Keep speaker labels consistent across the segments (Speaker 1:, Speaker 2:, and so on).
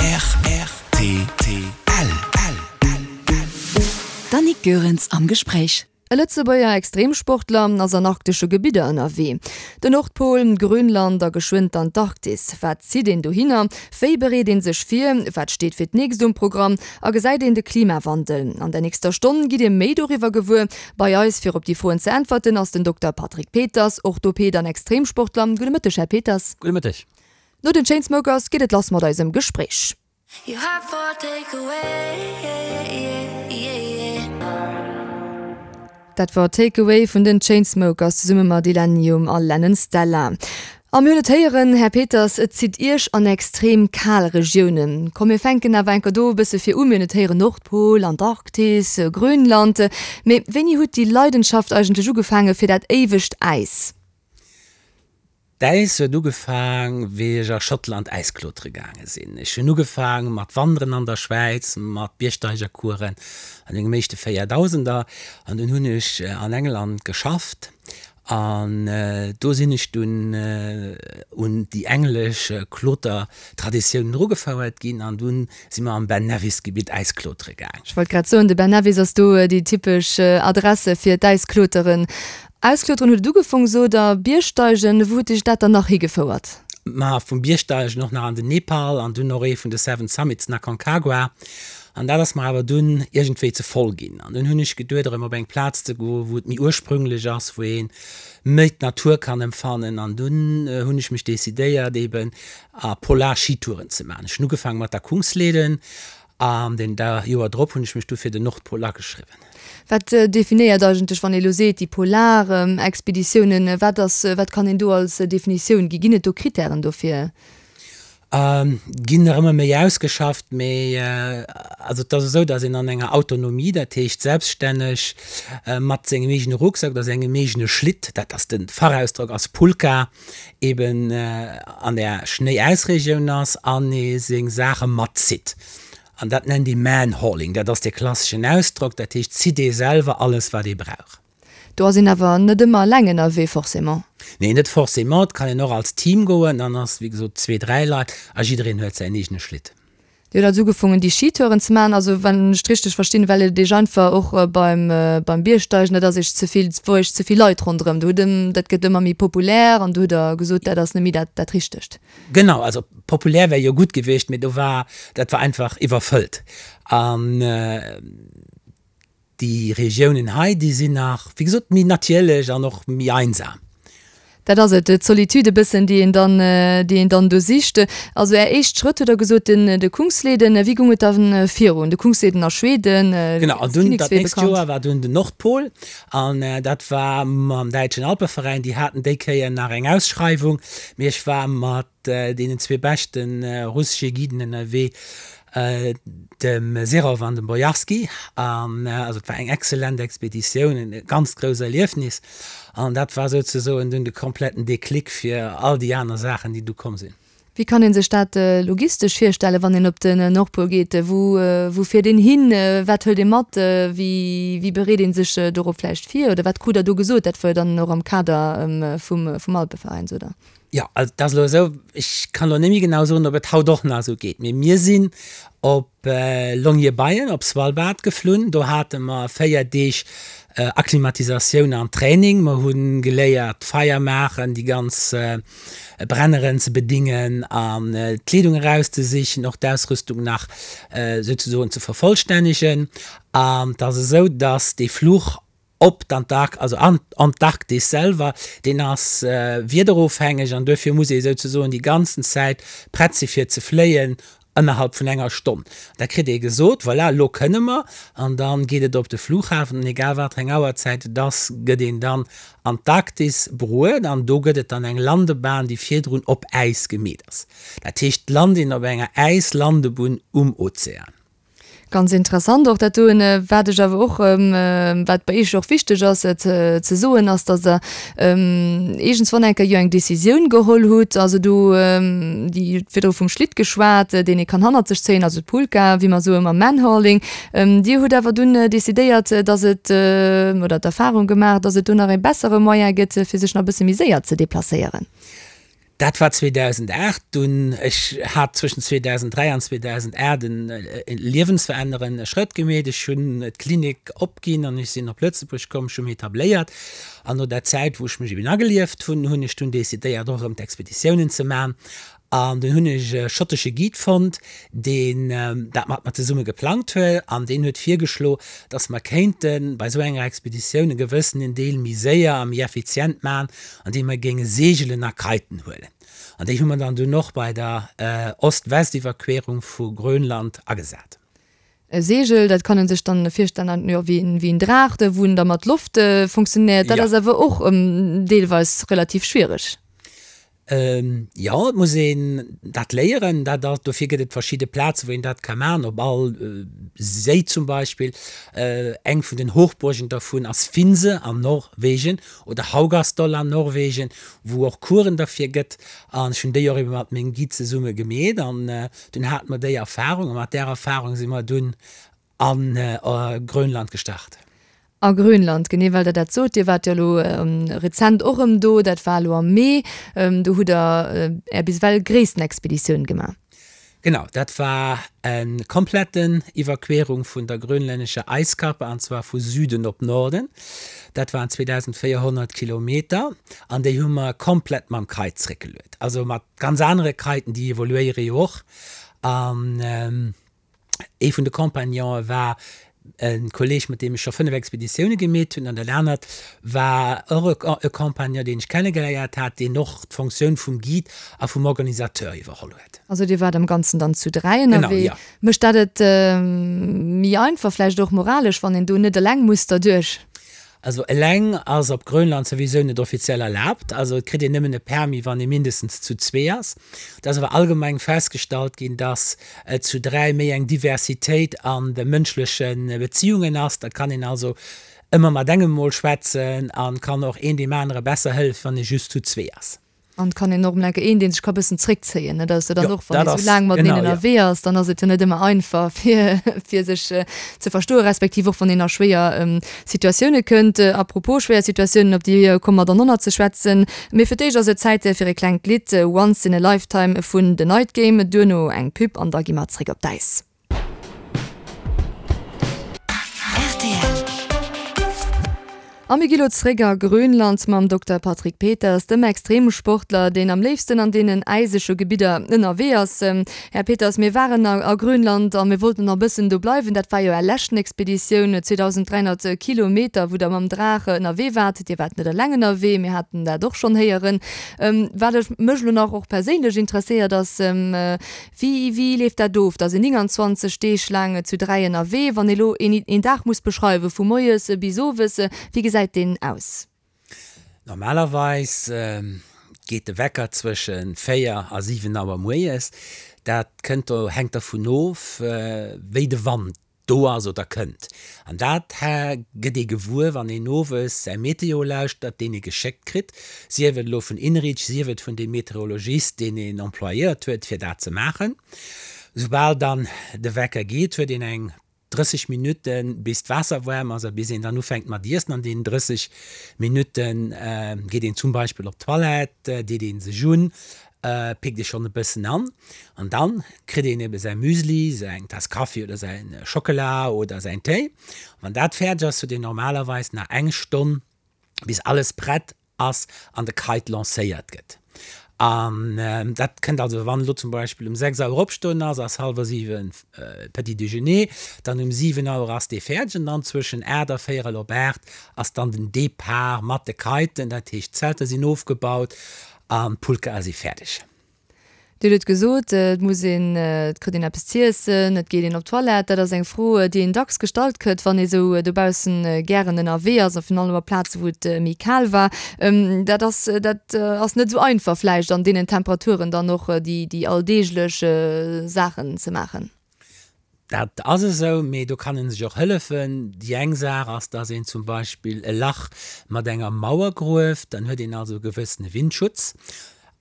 Speaker 1: Rtl. D'Annick Goerens am Gespréich.
Speaker 2: E Lëtzebuerger Extremsportler ass an arktesche Gebidder ënnerwee. Den Nordpol, Grönland a geschwënn d'Antarktis. Wat zitt een dohinner? Wéi bereet een sech vir? Wat steet fir d'nächst um Programm? A gesäit een de Klimawandel? An der nächster Stonn gitt Dir méi doriwwer gewuer. Bei eis fir op déi Froen ze äntwerten ass den Dokter Patrick Peters, Orthoped an Extremsportler. Gudde Mëtteg, Här Peters.
Speaker 3: Gudde Mëtteg.
Speaker 2: No den Chainsmokers geet et lass mat eisem Gespréich. Dat war Take Away vun den Chainsmokers zesumme mat Illenium a Lennon Stella. A mir hunn et héieren, Här Peters, et zitt Iech an extrem kal Regiounen. Komm mir fänken awer enker do e bësse vir u. Mir hunn et héieren, Nordpol, Antarktis, Grönland. Mee wéini hutt déi Leidenschaft eigentlech ugefaange fir dat éiwegt Äis?
Speaker 3: D'Äis huet ugefaang, wéi ech a Schottland Äisklotere gaange sinn. Ech hunn ugefaang mat Wanderen an der Schwäiz, mat Biergsteigercoursen an mengem éischte Véierdausender. An dunn hunn ech an England geschafft an do sinn ech dunn un déi englesch Klotertraditiounen erugefouert ginn an dunn si mer am Ben Nevis Gebitt Äisklotere gaang.
Speaker 2: Ech wollt grad soen, de Ben Nevis ass do déi typesch Adresse fir d'Äiskloteren. Auskloteren huet et ugefong, sot der. Biergsteigen, wou huet dech dat dann nach higefouert?
Speaker 3: Ma vum Biergsteigen och nach an den Nepal an dunn och ee vun de Seven Summits, den Aconcagua. An dat ass mer awer dunn iergendwéi ze voll ginn. An dunn hunn ech geduet, erëm op eng Plaz ze goen, wou et méi ursprünglech ass, wou ee méi d'Natur kann empfannen. An dunn hunn ech mech decidéiert, eben a Polar-Skitouren ze maachen. Ech hunn ugefaange mat der Kungsleden An den da Joer drop hunn ech mech du fir den Nordpol ageschriwwen.
Speaker 2: Wat definéiert eigentlech, wann ee lo seet, déi polar Expeditiounen, wat ass, wat kann een do als Definitioun ginn? Ginn et do Kritären dofir?
Speaker 3: Ginn nach ëmmer méi ausgeschafft, mee also et ass esou, datt een an enger Autonomie, dat heescht selbststänneg mat sengem eegene Rucksack oder sengem eegene Schlitt, dat ass de Fachausdrock ass Pulka, eben an der Schnéi-Äis-Regioun ass an ee seng Saache matzitt. An dat nennt ee Manhauling. Dat ass dee klasseschen Ausdrock. Dat heescht, zitt ee selwer alles, wat ee brauch.
Speaker 2: Do ass een awer net ëmmer eleng ënnerwee, forcément.
Speaker 3: Nee, net forcément. Et kann een och als Team goen. Dann ass, wéi gesot, zwee, dräi Leit a jiddereen huet säin eegene Schlitt.
Speaker 2: Dir hutt also ugefongen déi Skitouren ze maachen, also wann ech et richteg verstinn, well et iech einfach och beim beim Biergsteigen, dat ass iech ze vill, et wor iech ze vill Leit ronderëm, do hutt dat gëtt ëmmer méi populär an do hutt der gesot, dat ass net méi dat dat Richtegt.
Speaker 3: Genau, also populär wär jo gutt gewiescht, mee do war, dat war einfach iwwerfëllt an Déi Regiounen hei, déi sinn nach, wéi gesot, méi natierlech an och méi einsam.
Speaker 2: Dat ass et, d'Solitude e bëssen, déi een dann, déi een dann do sicht. Also Är éischt Schrëtt, hutt Der gesot, den, de Kungsleden. Wéi goung et da virun? De Kungsleden a Schweden,
Speaker 3: Genau, an dunn dat nächst Joer war dunn den Nordpol an dat war mam Däitschen Alpeveräin. Déi haten déi Kéier nach eng Ausschreiwung, mee ech war mat deenen zwee beschte russesche Guiden ënnerwee, dem Serov an dem Bojarski. An also et war eng exzellent Expeditioun, e ganzt grousst Erliefnis. An dat war souzesoen dunn de kompletten Déclic fir all déi aner Saachen, déi du komm sinn.
Speaker 2: Wéi kann ee sech dat logistesch virstellen, wann een op den Nordpol geet? Wou, wou fiert een hin? Wat hëlt ee mat? Wéi, wéi bereet ee sech dorop vläicht vir? Oder wat krut Der do gesot? Dat war jo dann och am Kader vum, vum Alpeveräin, sot Der.
Speaker 3: Jo, also et ass elo esou, ech kann elo net méi genau soen, ob et haut och nach esou geet, mee mir sinn op Longyearbyen op Svalbard geflunn. Do hate mer 4 Deeg Akklimatisatioun an Training. Mer hu geléiert Feier maachen, déi ganz Brenneren ze bedingen an d'Kleedung erauszesichen, och d'Ausrüstung nach souzesoen ze vervollstännegen. An et ass esou, dass dee Fluch Op d'Antark-, also an d'Antarktis selwer, deen ass wiederofhängeg an duerfir muss ee souzesoen déi ganzen Zäit prett si fir ze fléien ënnerhalb vun enger Stonn. Da kritt ee gesot, voilà, elo kënne mer, an da geet et op de Flughafen an egal wat fir eng Auerzäit et ass, gëtt een dann an d'Arktis bruet an do gëtt et dann eng Landebahn, déi virdrun op Äis gemeet ass. Dat heescht, d'Land een op enger Äislandebunn um Ozean.
Speaker 2: Ganz interessant och dat doen. Wat ech awer och, wat bei Iech och wichteg ass ze soen, ass, datt Der iergendswann eng Kéier jo eng Decisioun geholl hutt, also do, déi hutt virdru vum Schlitt geschwat, deen ee kann hannert sech zéien, also d'Pulka, wéi mer soe mam Manhauling. Dir hutt awer dunn decidéiert, datt et, oder d'Erfahrung gemaach, datt et do nach ee bessere Moyen gëtt, fir sech nach e bësse méi séier ze deplacéieren.
Speaker 3: Dat war 2008. Dunn, ech hat zwëschen 2003 an 2008 e liewensverännerende Schrëtt gemeet. Ech hunn d'Klinik opginn an ech sinn op Lëtzebuerg komm. Ech hu mech etabléiert an no der Zäit, wou ech mech eben agelieft hunn, hunn ech dunn decidéiert, och erëm d'Expeditiounen ze man. An dunn hunn ech e schottesche Guide fonnt, deen dat mat mer zesumme geplangt huet an deen huet virgeschlo, dass mer kéinte bei esou enger Expeditioun e gewëssenen Deel méi séier a méi effizient maachen, andeem mer géinge Seegelen a Kiten huelen. An déi hu mer dann dunn och bei der Ost-West-Iwwerquerung vu Grönland agesat.
Speaker 2: E Seegel, dat kann en sech dann virstellen, jo, wéi en Draach, wou en da mat Loft funktionéiert. Dat ass awer och deelweis relativ schwiereg.
Speaker 3: Jo, et muss een dat léieren. Dat ass, dofir gëtt et verschidde Plazen, wou een dat ka maachen, op all Séi zum Beispill. Eng vun den Hochburgen dervun ass Finse an Norwegen oder Haugastol an Norwegen, wou och Coursen derfir gëtt. An ech hunn déi och ebe mat mengem Guide zesumme gemeet an dunn hate mer déi Erfarung a mat där Erfarung si mer dunn A Grönland gestart.
Speaker 2: A Grönland, genee, well Der dat sot. Dir waart jo elo rezent och erëm do, dat war elo am Mee. Do hutt Der Är bis ewell gréissten Expeditioun gemaach.
Speaker 3: Genau, dat war e kompletten Iwwerquerung vun der grönlännescher Eiskappe, an zwar vu Süden op Norden. Dat waren 2.400 Kilometer an déi hu mer komplett mam Kite zréckgeluet. Also mat ganz anere Kiten, déi evoluéiere jo och. An Ee vun de Compagnonë war e Kolleeg, mat deem ech scho 5 Expeditioune gemeet hunn, an dat anert war och e Compagnon, deen ech kennegeléiert hat, deen och d'Fonctioun vum Guide a vum Organisateur iwwerholl huet.
Speaker 2: Also Dir waart am Ganzen dann zu 3 ënnerwee.
Speaker 3: Genau, jo.
Speaker 2: Mécht dat et méi einfach, vläicht och moralesch, wann een do net eleng muss derduerch?
Speaker 3: Also eleng ass op Grönland souwisou net offiziell erlaabt. Also et kritt een nëmmen e Permis, wann ee mindestens zu zwee ass. Et ass awer allgemeng festgestallt ginn, dass et zu 3 méi eng Diversitéit an de mënschleche Beziungen ass. Dat kann een also ëmmer mat engem mol schwätzen an kann och een deem anere besser hëllefen, wann ee just zu zwee ass.
Speaker 2: An et kann een och emol enke een, dee sech ka bëssen zréckzéien, net? Ass jo dann och, wann ee sou laang mateneen ënnerwee ass, dann ass et jo net ëmmer einfach, fir, fir sech ze verstoen, respektiv och wann een a schwéier Situatioune kënnt. A propos schwéier Situatiounen, op déi komme mer dann och nach ze schwätzen. Mee fir d'éischt ass et Zäit fir e klengt Lidd, Once in a Lifetime vun The Night Game, duerno eng Pub an da gi mer zréck op d'Äis. A mir gi lo zréck a Grönland mam Dokter Patrick Peters, dem Extremsportler, deen am léifsten an deenen äisege Gebidder ënnerwee ass. Här Peters, mir waren a Grönland a mir wollten nach e bëssen do bleiwen. Dat war jo Är leschten Expeditioun, 2.300 Kilometer, wou Der mam Draach ënnerwee waart. Dir waart net eleng ënnerwee, mir haten dat och schonn héieren. Wat ech mech elo nach och perséinlech interesséiert ass, Wéi, wéi leeft dat of? Da sinn 29 Deeg laang zu 3 ënnerwee. Wann ee lo een, een Dag muss beschreiwen, vu moies bis owes, wéi gesäit deen aus?
Speaker 3: Normalerweis geet de Wecker zwësche 4 a 7 Auer moies. Dat kënnt do, hänkt dervun of, wéi de Wand do ass oder kënnt. An dat gëtt ee gewuer, wann een owes säi Meteo lauschtert, deen ee geschéckt kritt, sief et elo vun INRIC, sief et vun deem Meteorologist, deen een employéiert huet, fir dat ze maachen. Soubal dann de Wecker geet, huet een eng 30 Minutten, bis d'Waasser waarm ass a bis een dann ufänkt mat iessen. An deenen 30 Minutte geet een zum Beispill op d'Toilette, deet ee sech un, Pickt ee schonn e bëssen an. An dann kritt een ebe säi Müsli, säin Taass Kaffi oder säin Schockela oder säin Téi. Wann dat fäerdeg ass, huet een normalerweis nach eng Stonn, bis alles prett ass an de Kite lancéiert gëtt. An dat kënnt also, wann elo zum Beispill um 6 Auer opstoen ass, ass hallwer 7 Petit Déjeuner, dann um 7 Auer ass dee fäerdeg an dann zwëschen 8 a véierel op 8 ass dann den Depart mat de Kiten, dat heescht d'Zelter sinn ofgebaut An d'Pulkae si fäerdeg.
Speaker 2: Dir hutt et gesot, et muss een, et kritt een eppes z'iessen, et geet een op d'Toilette. Dat ass eng Fro, déi een dacks gestallt kritt, wann ee sou dobaussen gären ënnerwee ass a virun allem op Plaze wou et méi kal war. Dat ass, dat ass net esou einfach vläicht an deenen Temperaturen dann och déi, déi alldeeglech Saachen ze maachen.
Speaker 3: Dat ass esou, mee do kann ee sech och hëllefen. Déi eng Saach ass, dass een zum Beispill e Lach mat enger Mauer grueft, dann huet een also e gewëssene Windschutz.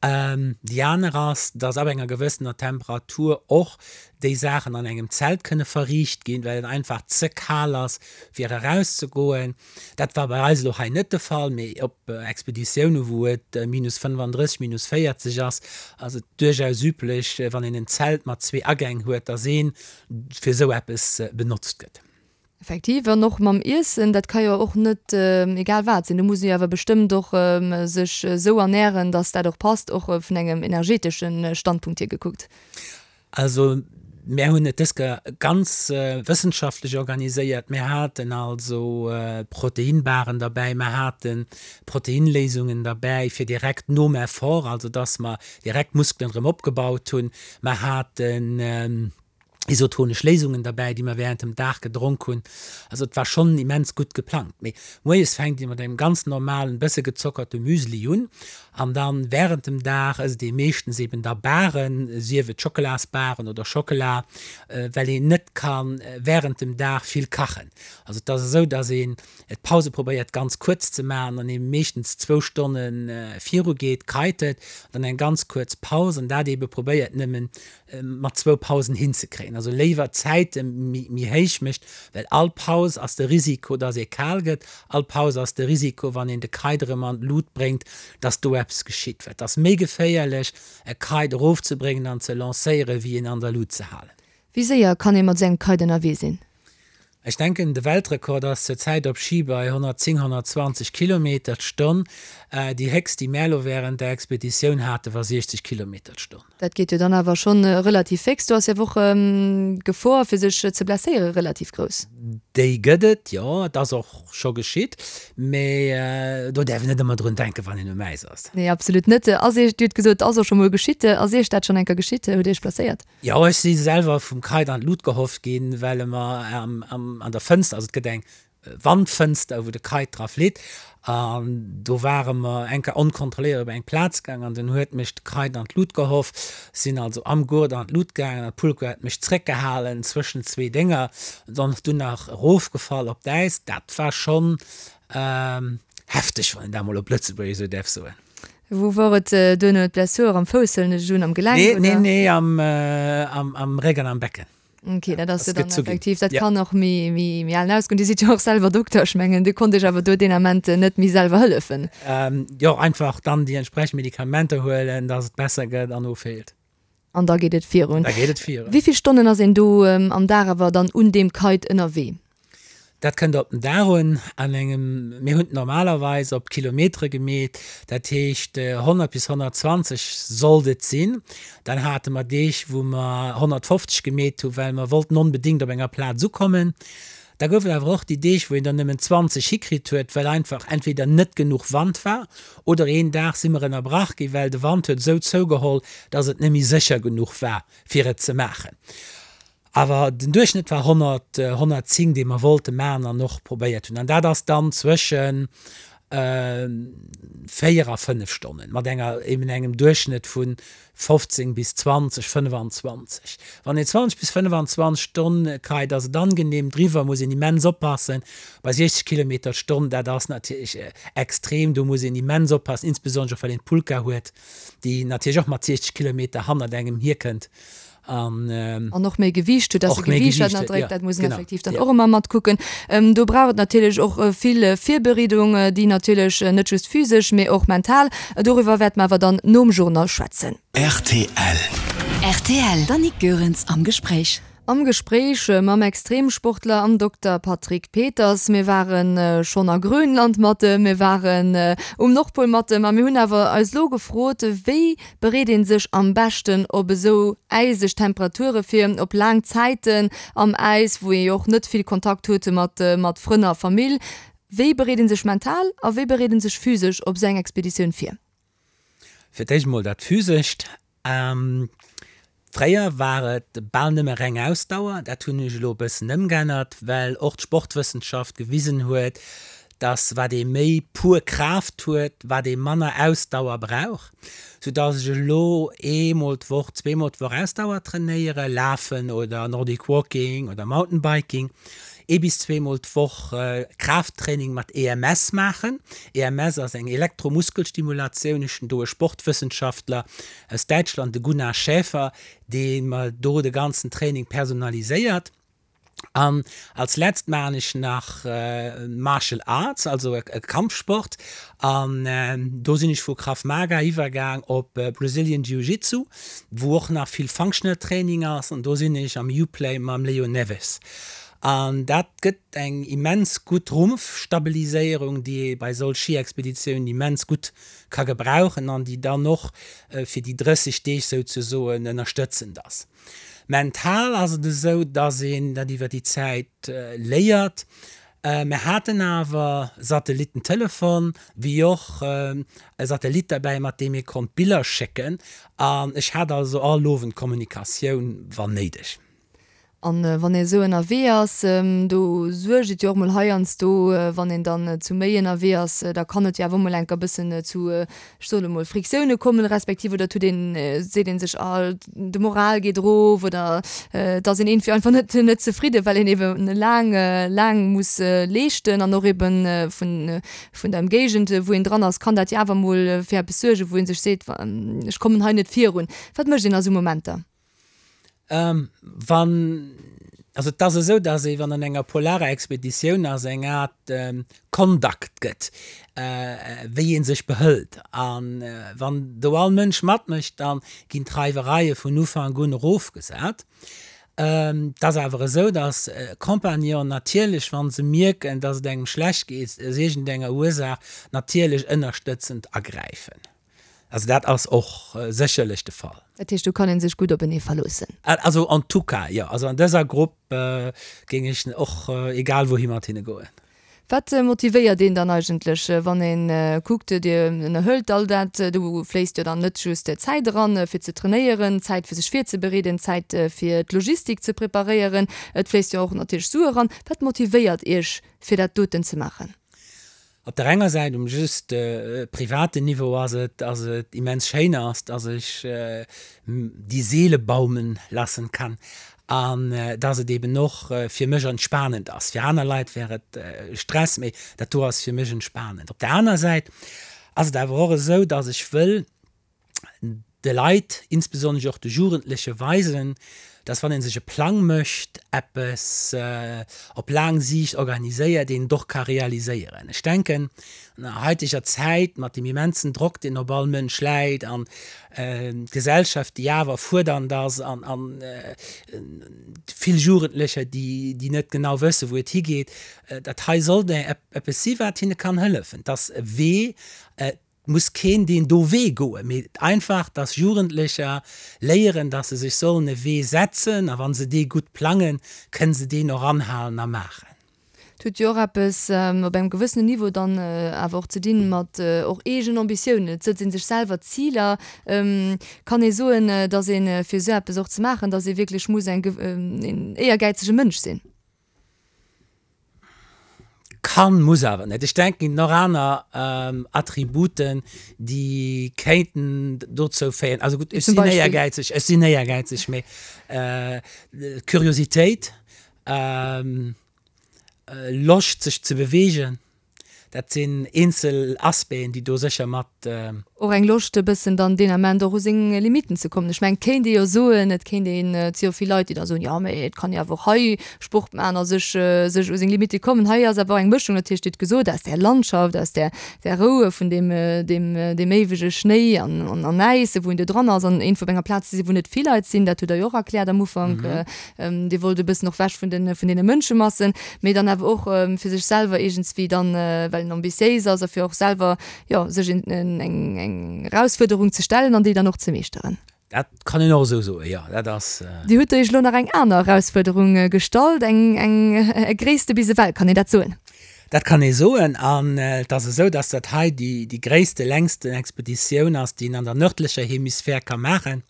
Speaker 3: Déi aner ass, dass ab enger gewëssener Temperatur och déi Saachen an engem Zelt kënne verriicht ginn, well et einfach ze kal ass, fir erauszegoen. Dat war bei eis elo hei net de Fall, mee op Expeditioune wou et minus 35, minus 40 ass, ass et duerchaus üblech, wann een en Zelt mat zwee Agäng huet, dass ee fir esou eppes benotzt gëtt.
Speaker 2: Effektiv, an och mam Iessen, dat ka jo och net egal wat sinn. Do muss ee jo awer bestëmmt och sech esou ernären, datt dat och passt, och vun engem energeetesche Standpunkt hier gekuckt.
Speaker 3: Also mär hunn et dës Kéier ganz wëssenschaftlech organiséiert. Mär haten also Proteinbaren derbäi, mär hate Proteinléisungen derbäi fir direkt nom Effort, also datt mer direkt d'Muskelen erëm opgebaut hunn. Mär haten isotonesch Léisungen derbäi, déi mer während dem Dag gedronk hunn. Also et war schonn immens gutt geplangt. Mee moies fänkt ee mat engem ganz normalen, bësse gezockerte Müsli un an dann während dem Dag ësst ee meeschtens eben da Baren, sief et Schockelasbaren oder Schockela, well een net ka während dem Dag vill kachen. Also et ass esou, dass een d'Pause probéiert ganz kuerz ze maachen an ee meeschtens zwou Stonne viru geet, kitet, dann eng ganz kuerz Paus an dat eebe probéiert nëmmen mat zwou Pausen hinzekréien. Also léiwer d'Zäite méi héich mécht, well all Paus ass de Risiko, dass ee kal gëtt, all Paus ass de Risiko, wann een de Kite erëm an d'Lut bréngt, dass do eppes geschitt. Well et ass méi geféierlech, e Kite erofzebréngen an ze lancéieren, wéi en an der Lut ze halen.
Speaker 2: Wéi séier kann ee mat esou engem Kite ënnerwee sinn?
Speaker 3: Ech denken, de Weltrekord ass zur Zäit op Schi bei 110, 120 Kilometer d'Stonn. Déi héchst, déi mär elo wärend der Expeditioun haten, war 60 Kilometer d'Stonn.
Speaker 2: Dat geet jo dann awer schonn relativ féx. Do ass jo awer och d'Gefor, fir sech ze blesséieren, relativ grouss.
Speaker 3: Déi gëtt et, jo. Et ass och scho geschitt. Mee do däerf een net ëmmer drun denken, wann een um Äis ass.
Speaker 2: Nee, absolut net. Ass Iech, Dir hutt gesot, et ass och scho mol geschitt. Ass Iech dat schonn eng Kéier geschitt? Hutt Dir Iech blesséiert?
Speaker 3: Jo, ech si selwer vum Kite an d'Lut gehoff ginn, well e mer an der Fënster, also et gëtt eng Wandfënster, wou de Kite dra flitt, an do ware mer eng Kéier onkontrolléiert op eng Plaz gaang an dunn huet mech de Kite an d'Lut gehoff. Sinn also am Gurt an d'Lut gaangen an d'Pulka huet mech zréckgehalen zwëschen zwee Dénger, an dunn nach erofgefall op d'Äis. Dat war schonn hefteg, wann een dat mol op Lëtzebuergesch esou däerf soen.
Speaker 2: Wou wor et duerno? D'Blessur am Fouss huelen ech un, am Gelenk
Speaker 3: Nee, nee, oder? nee, am, am, am Réck an am Becken.
Speaker 2: Ok, dat ass jo dann effektiv, dat kann och méi, méi, méi alen ausgoen. Dir sidd jo och selwer Dokter, ech mengen, Dir konnt Iech awer do deen Ament net méi selwer hëllefen.
Speaker 3: Jo, einfach dann déi entsprechend Medikamenter huelen, dass et besser gëtt an ofheelt.
Speaker 2: An da geet et virun.
Speaker 3: Da geet et virun.
Speaker 2: Wéi vill Stonnen ass een do am Dag awer dann un deem Kite ënnerwee?
Speaker 3: Dat kënnt op den Dag un. An engem, mir hunn et normalerweis op Kilometere gemeet, dat heescht 100 bis 120 sollt et sinn. Dann hate mer Deeg, wou mer 150 gemeet hu well mer wollten onbedéngt op enger Plaz ukommen. Da gouf et awer och déi Deeg, wou een der nëmmen 20 hikritt huet, well einfach entweder net genuch Wand war oder een Dag si mer ënnerbrach gi well de Wand huet esou zougeholl, dass et net méi sécher genuch war, fir et ze maachen. Awer den Duerchschnëtt war 100, 110, dee mer wollte maachen an och probéiert hunn. An dat ass dann zwëschen 4 a 5 Stonnen, mat enger, eben engem Duerchschnëtt vu 15 bis 20, 25. Wann een 20 bis 25 Stonn kite, ass et angenehm. Driwwer muss een immens oppassen. Bei 60 Kilometer d'Stonn, dat ass natierlech extrem, do muss een immens oppassen, insbesonnesch och well een d'Pulka huet, déi natierlech och mat 60 Kilometer hannert engem hierkënnt.
Speaker 2: An, an och méi Gewiicht huet, dass e Gewiicht wat ënnerdréckt, dat muss een effektiv dann och ëmmer matkucken. Do brauch et natierlech och vill Virbereedung, déi natierlech net just physesch, mee och mental. Doriwwer wäerte mer awer dann nom Journal schwätzen.
Speaker 1: Rtl. Rtl, D'Annick Goerens am Gespréich.
Speaker 2: Am Gespréich mam Extremsportler an Dokter Patrick Peters. Mir ware schonn a Grönland mat em, mir waren um Nordpol mat em a mir hunn awer eis elo gefrot, wéi bereet ee sech am beschten op esou äiseg Temperature vir, op laang Zäiten am Äis, wou ee jo och net vill Kontakt huet mat mat Frënn a Famill. Wéi bereet ee sech mental a wéi bereet ee sech physesch op esou eng Expeditioun vir?
Speaker 3: Fir d'éischt emol dat Physescht. Fréier war et bal nëmme reng Ausdauer. Dat hunn ech elo e bëssen ëmgeännert, well och d'Sportwëssenschaft gewisen huet, dass wat ee méi pur Kraaft huet, wat ee manner Ausdauer brauch, sou dass ech elo eemol d'Woch, zweemol d'Woch Ausdauer trainéiere, Lafen oder Nordic Walking oder Mountainbiking. Ee bis zweemol d'Woch Kraafttraining mat EMS maachen. EMS ass eng Elektromuskelsstimulatioun. Ech hunn do e Sportwëssenschaftler aus Däitschland, de Gunnar Schäfer, dee mer do de ganzen Training personaliséiert. An als letzt maachen ech nach Martial Arts, also e Kampfsport. An do sinn ech vu Krav Maga iwwergaang op Brazilian Jiu Jitsu, wou och nach vill Functional Training ass. An do sinn ech am Uplay mam Leo Neves. An dat gëtt eng immens gutt Rumpfstabiliséierung, déi ee bei solch Schiexpeditiounen immens gutt ka gebrauchen an déi dann och fir déi 30 Deeg souzesoen ënnerstëtzend ass. Mental ass et esou, dass een dat iwwer déi Zäit léiert. Mir haten awer Satellittentelefon, wéi och e Satellit derbäi, mat deem ee konnt Biller schécken. An ech hat also all Owend Kommunikatioun, wann néideg.
Speaker 2: An wann ee esou ënnerwee ass, do suergt et jo och mol heiansdo, wann een dann zu méi ënnerwee ass, da kann et jo awer och mol enker e bëssen zu, ech soen emol, Friktioune kommen, respektiv oder et huet een, seet een sech, ah de Moral geet erof oder et ass een iergendwéi einfach net net zefridden, well een eben laang laang muss leeschten an och eben vun vun der Ëmgéigend wou een dran ass, kann dat jo awer mol fir eppes suergen, wou ee sech seet, ech kommen hei net virun. Wat mécht een a sou Momenter?
Speaker 3: Wann, also et ass esou, datt ee wann an enger polarer Expeditioun ass, eng Aart Conduct gëtt, wéi ee sech behëlt. A wann do all Mënsch matmécht, da ginn d'Reiwereie vun Ufank un erofgesat. Et ass awer esou, datt Compagnonen natierlech, wa se mierken, datt et engem schlecht geet, aus iergendenger Ursaach, natierlech ënnerstëtzend agräifen. Also dat ass och sécherlech de Fall.
Speaker 2: Dat heescht, do kann ee sech gutt openee verloossen?
Speaker 3: Also en tout cas, jo. Also an dëser Grupp géing ech och egal wouhi mat hinne goen.
Speaker 2: Wat motivéiert een dann eigentlech, wann ee kuckt, Dir ënnerhëlt all dat, do fléisst jo dann net just Zäit eran, fir ze trainéieren, Zäit fir sech virzebereeden, Zäit fir d'Logistik ze preparéieren, et fléisst jo och natierlech Sue eran. Wat motivéiert Iech, fir dat doten ze maachen?
Speaker 3: Op der enger Säit, um just privaten Niveau ass et, dass et immens schéin ass, dass ech die Seele baumen lassen kann an dass et eben och fir mech entspanend ass. Fir aner Leit wär et Stress, mee dat do ass fir mech entspanend. Op der aner Säit ass et awer och esou, dass ech wëll, de Leit, insbesonnesch och de Jugendleche weisen, dass wann ee sech e Plang mécht, eppes op laang Siicht organiséiert, een et och ka realiséieren. Ech denken, an der haiteger Zäit mat deem immensen Drock, deen op all Mënsch läit an d'Gesellschaft, déi awer fuerdernd ass an vill Jugendlecher, déi net genau wëssen, wou et higeet, dat hei sollt eppes si wat hinne kann hëllefen, dass e Wee, muss keen deen do Wee goen, mee einfach, dass Jugendlecher léieren, dass se sech sollen e Wee setzen a wa se dee gutt plangen, kënne se deen och anhalen a maachen.
Speaker 2: Et huet jo och eppes op engem gewëssenen Niveau dann awer och ze dinn mat och eegen Ambitiounen. Et sëtzt ee sech selwer Ziler. Kann ee soen, dass ee fir esou eppes och ze maachen, dass ee wierklech muss eng een éiergäizege Mënsch sinn?
Speaker 3: Kann, muss awer net. Ech denken, et ginn och aner Attributen, déi kéinten dozou féieren. Also gutt, ech sinn éiergäizeg, ech sinn éiergäizeg, mee Curiositéit, Loscht sech ze beweegen, Dat sinn eenzel Aspecten, déi do sécher mat.
Speaker 2: Och eng Loscht e bëssen dann deen Ament och u seng Limitten ze kommen. Ech mengen, et kéint ee jo soen, et kéint een, et si jo vill Leit, déi da soen, jo mee et kann ee awer och hei Sport maachen a sech, sech u seng Limitte kommen. Hei ass awer och eng Mëschung, natierlech, Dir hutt gesot, aus där Landschaft, aus där, där Rou vun deem, deem, deem éiwege Schnéi an, an, an Äis, wou een do dran ass an iergendwou op enger Plaz ze sinn, wou net vill Leit sinn, dat hutt Der jo och erkläert am Ufank. Dir wollt e bëssen och wech vun den, vun deene Mënschemassen, mee dann awer och fir sech selwer iergendswéi dann, well en ambitiéis ass a fir och selwer, jo, sech en, eng, eng Erausfuerderung ze stellen an déi dann och ze meeschteren.
Speaker 3: Dat kann een och esou soen, jo, dat ass.
Speaker 2: Dir hutt Iech elo nach eng aner Erausfuerderung gestallt, eng, eng gréisste bis ewell, kann een dat soen?
Speaker 3: Dat kann ee soen. An et ass esou, dass dat hei déi, déi gréisste, längsten Expeditioun ass, déi een an der nërdlecher Hemisphär ka maachen.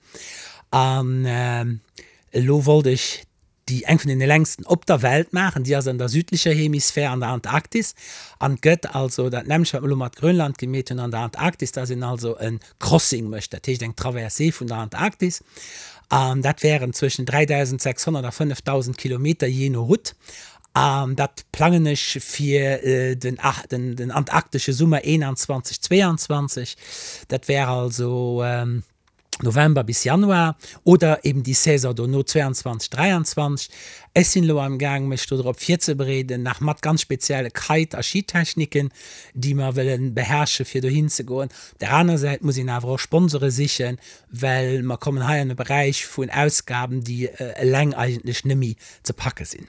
Speaker 3: An Elo wollt ech déi eng vun deene längsten op der Welt maachen, déi ass an der südlecher Hemisphär, an der Antarktis, an gëtt also dat nämmlecht wat mer elo mat Grönland gemeet hunn an der Antarktis, dass een also e Crossing mécht, dat heescht eng Traversée vun der Antarktis, an dat wären zwëschen 3.600 a 5.000 Kilometer, jee no Route. An dat plangen ech fir den antarktesche Summer 21, 22. Dat wär also November bis Januar oder eben déi Saison dono 22, 23. Ech sinn elo am Gaang mech do drop virzebereeden, nach mat ganz spezielle Kite a Skitechniken, déi mer wëlle beherrsche fir dohin ze goen. Op där aner Säit muss een awer och Sponsore sichen, well mer kommen hei an e Beräich vun Ausgaben, déi eleng eigentlech net méi ze packe sinn.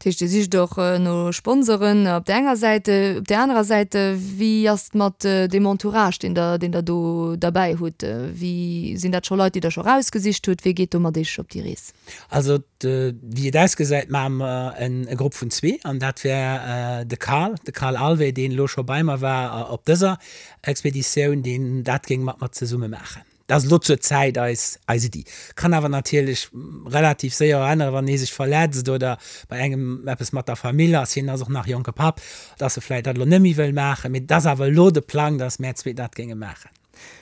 Speaker 2: Dat heescht, Dir sicht och no Sponsoren op där enger Säit. Op där anerer Säit, wéi ass et mat deem Entourage, deen Der, deen Der do derbäi hutt? Wéi, sinn dat scho Leit, déi Der scho erausgesicht hutt? Wie geet do mat Iech op déi Rees?
Speaker 3: Also, wéi et ausgesäit, maache mer e Grupp vun zwee an dat wär de Carl, de Carl Alvé, deen elo scho bei mer war op dëser Expeditioun, deen dat géing mat mer zesumme maachen. Dat ass elo zur Zäit eis eis Iddi. Kann awer natierlech relativ séier och änneren, wann ee sech verletzt oder bei engem eppes mat der Famill ass, hien ass och nach jonke Papp, dass e vläicht dat elo net méi wëll maachen. Mee et ass awer elo de Plang, dass mär zwee dat géinge maachen.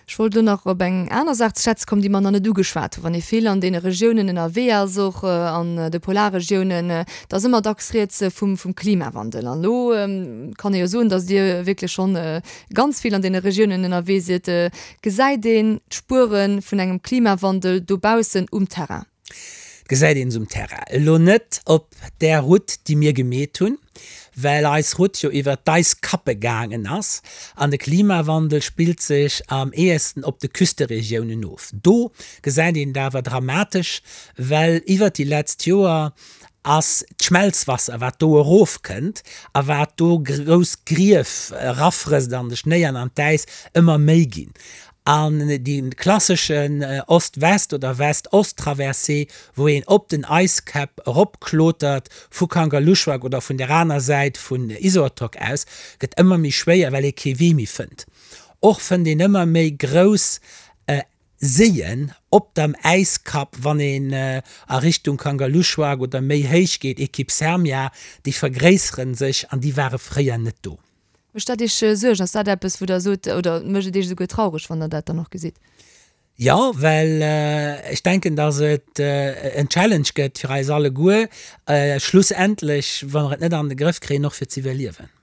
Speaker 2: Ech wollt elo nach op eng aner Saach ze schwätze kommen, déi mer nach net ugeschwat hunn. Wann ee vill an deene Regiounen ënnerwee ass, och an de Polarregiounen, da ass ëmmer dacks rieds vum Klimawandel. An elo kann ee jo soen, dass Dir wierklech schonn ganz vill an deene Regiounen ënnerwee sidd. Gesäit een d'Spuere vun engem Klimawandel dobaussen um Terrain?
Speaker 3: Gesäit een se um Terrain. Elo net op där Route, déi mir gemeet hunn, well eis Route jo iwwer d'Eiskappe gaangen ass. An de Klimawandel spillt sech am ehesten op de Küsteregiounen of. Do gesäit een et awer dramatesch, well iwwer déi letzt Joer ass d'Schmelzwasser, wat do erofkënnt a wat do grouss Grief erafrësst an de Schnéi an an d'Äis, ëmmer méi ginn. An dee klasseschen Ost-West oder West-Ost-Traversée, wou een op den Äiskäpp eropklotert vu Kangerlussuaq oder vun der aner Säit vun Isortoq aus, gëtt ëmmer méi schwéier, well ee kee Wee méi fënnt. Och fënnt een ëmmer méi grouss Séien op dem Äiskapp, wann een a Richtung Kangerlussuaq oder méi héich geet, Equipe Sermia, déi vergréisseren sech an déi ware fréier net do.
Speaker 2: Mécht dat Iech Suergen? Ass dat eppes, wou Der sot, oder mécht et Iech esouguer traureg, wann Der dat dann och gesitt?
Speaker 3: Jo, well ech denken, datt et en Challenge gëtt fir eis alleguer, schlussendlech, wa mer et net an de Grëff kréien, och fir z'iwwerliewen.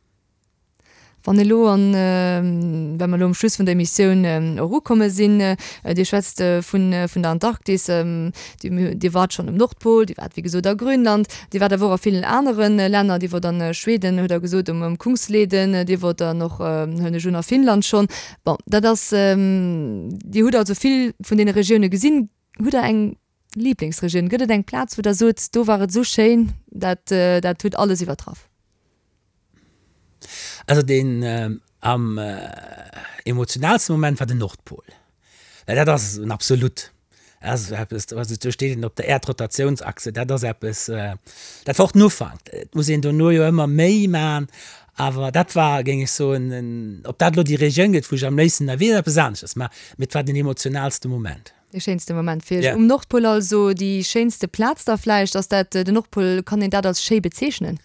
Speaker 2: Wann elo, an well mer elo um Schluss vun der Emissioun och ukomme sinn, Dir schwätzt vun vun der Antarktis, Dir waart schonn um Nordpol, Dir waart wéi gesot a Grönland, Dir waart awer och a villen anere Länner, Dir wort an Schweden, hutt Der gesot, um Kungsleden, Dir wort dann och, huelen ech un, a Finnland schonn. Bon, dat ass, Dir hutt also vill vun deene Regioune gesinn. Hutt Der eng Liblingsregioun? Gëtt et eng Plaz, wou Der sot, do war et esou schéin, dat dat huet alles iwwertraff?
Speaker 3: Also deen am emotionalste Moment war den Nordpol, well dat ass en Absolut. Dat ass eppes, also do steet een op der Äerdrotatiounsachse, dat ass eppes, dat war och den Ufank. Et muss een dono jo ëmmer méi man, awer dat war, géing ech soen, ob dat elo déi Regioun gëtt, wou ech am léifsten ënnerwee, ass eppes aneschters, mä et war den emotionalste Moment.
Speaker 2: Dee schéinste Moment fir Iech um Nordpol also, déi schéinste Plaz da vläicht, ass dat den Nordpol? Kann een dat als schéi bezeechnen?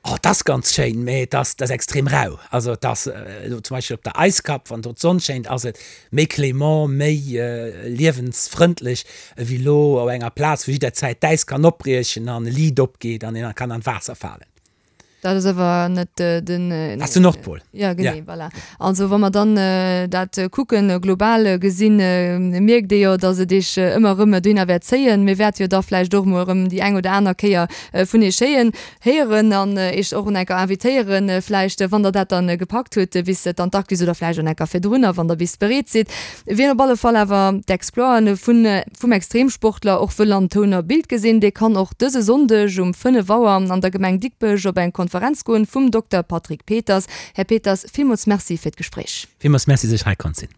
Speaker 3: Oh, et ass ganz schéin, mee et ass, et ass extrem rau. Also et ass elo zum Beispill op der Eiskapp, wann do d'Sonn schéint, ass et méi clément, méi liewensfrëndlech ewéi elo op enger Plaz, wou jidderzäit d'Äis kann opbriechen an e Liit opgeet an een kann an d'Waasser falen.
Speaker 2: Dat ass awer net den.
Speaker 3: Dat ass den Nordpol.
Speaker 2: Ja, genee, voilà. Also wa mer dann dat kucken, global gesinn, mierkt ee jo, datt et Iech ëmmer erëm dohinner wäert zéien. Mir wäerte jo da vläicht och emol erëm déi eng oder aner Kéier vun Iech héien, héieren an Iech och en enker invitéieren, vläicht, wann Der dat dann gepackt hutt, bis d'Antarktis oder vläicht en enker virdrunner, wann Der bis bereet sidd. Wien op alle Fall awer d'Exploiten vun vum Extremsportler och wëll an Toun a Bild gesinn, dee kann och dëse Sonndeg um 5 Auer an der Gemeng Digbech op eng Konferenz goen vum Dokter Patrick Peters. Här Peters, villmools Merci fir d'Gespréich.
Speaker 3: Villmools Merci, dass ech hei konnt sinn.